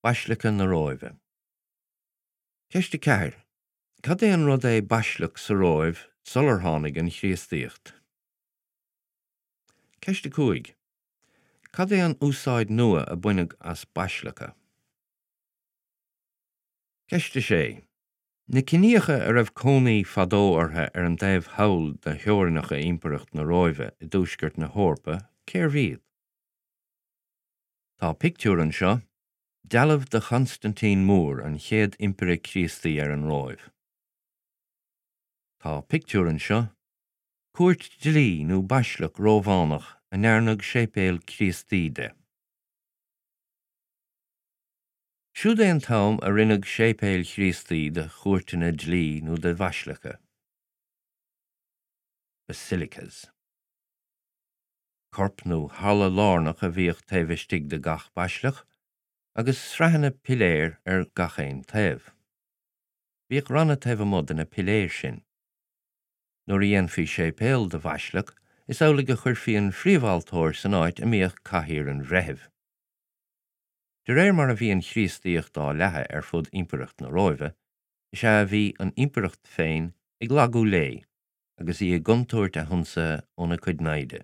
Baisleaca na Róimhe. Ceist 4. Cad é an rud é baisleac sa Róimh sular tháinig an Chríostaíocht? Ceist 5. Cad é an úsáid nua a baineadh as baisleaca? Ceist 6. Na ciníocha a raibh cónaí fadó orthu ar an dtaobh thall de theorainneacha Impireacht na Róimhe i dtuaisceart na hEorpa, cérbh iad? Tá pictiúr anseo, dealbh de Chonstaintín Mór, an chéad Impire Críostaí ar an Róimh. Tá pictiúr anseo, cúirt dlí nó baisleac Rómhánach a ndearnadh séipéal Críostaí de. Siúd é an t-am a rinneadh séipéil Chríostaí de chúirteanna dlí nó de bhaisleaca, basilicas. Corp nó halla lárnach a bhíodh taobh istigh de gach baisleac, agus sraitheanna piléar ar gach aon taobh. Bhíodh ranna taobh amuigh de na piléir sin. Nuair a dhéanfaí séipéal de bhaisleac, is amhlaidh a chuirfí an phríomhaltóir san áit a mbíodh cathaoir an bhreithimh. De réir mar a bhí an Chríostaíocht á leathadh ar fud Impireacht na Róimhe, is ea a bhí an Impireacht féin ag lagú léi agus í i gcontúirt a hionsaithe óna cuid naimhde.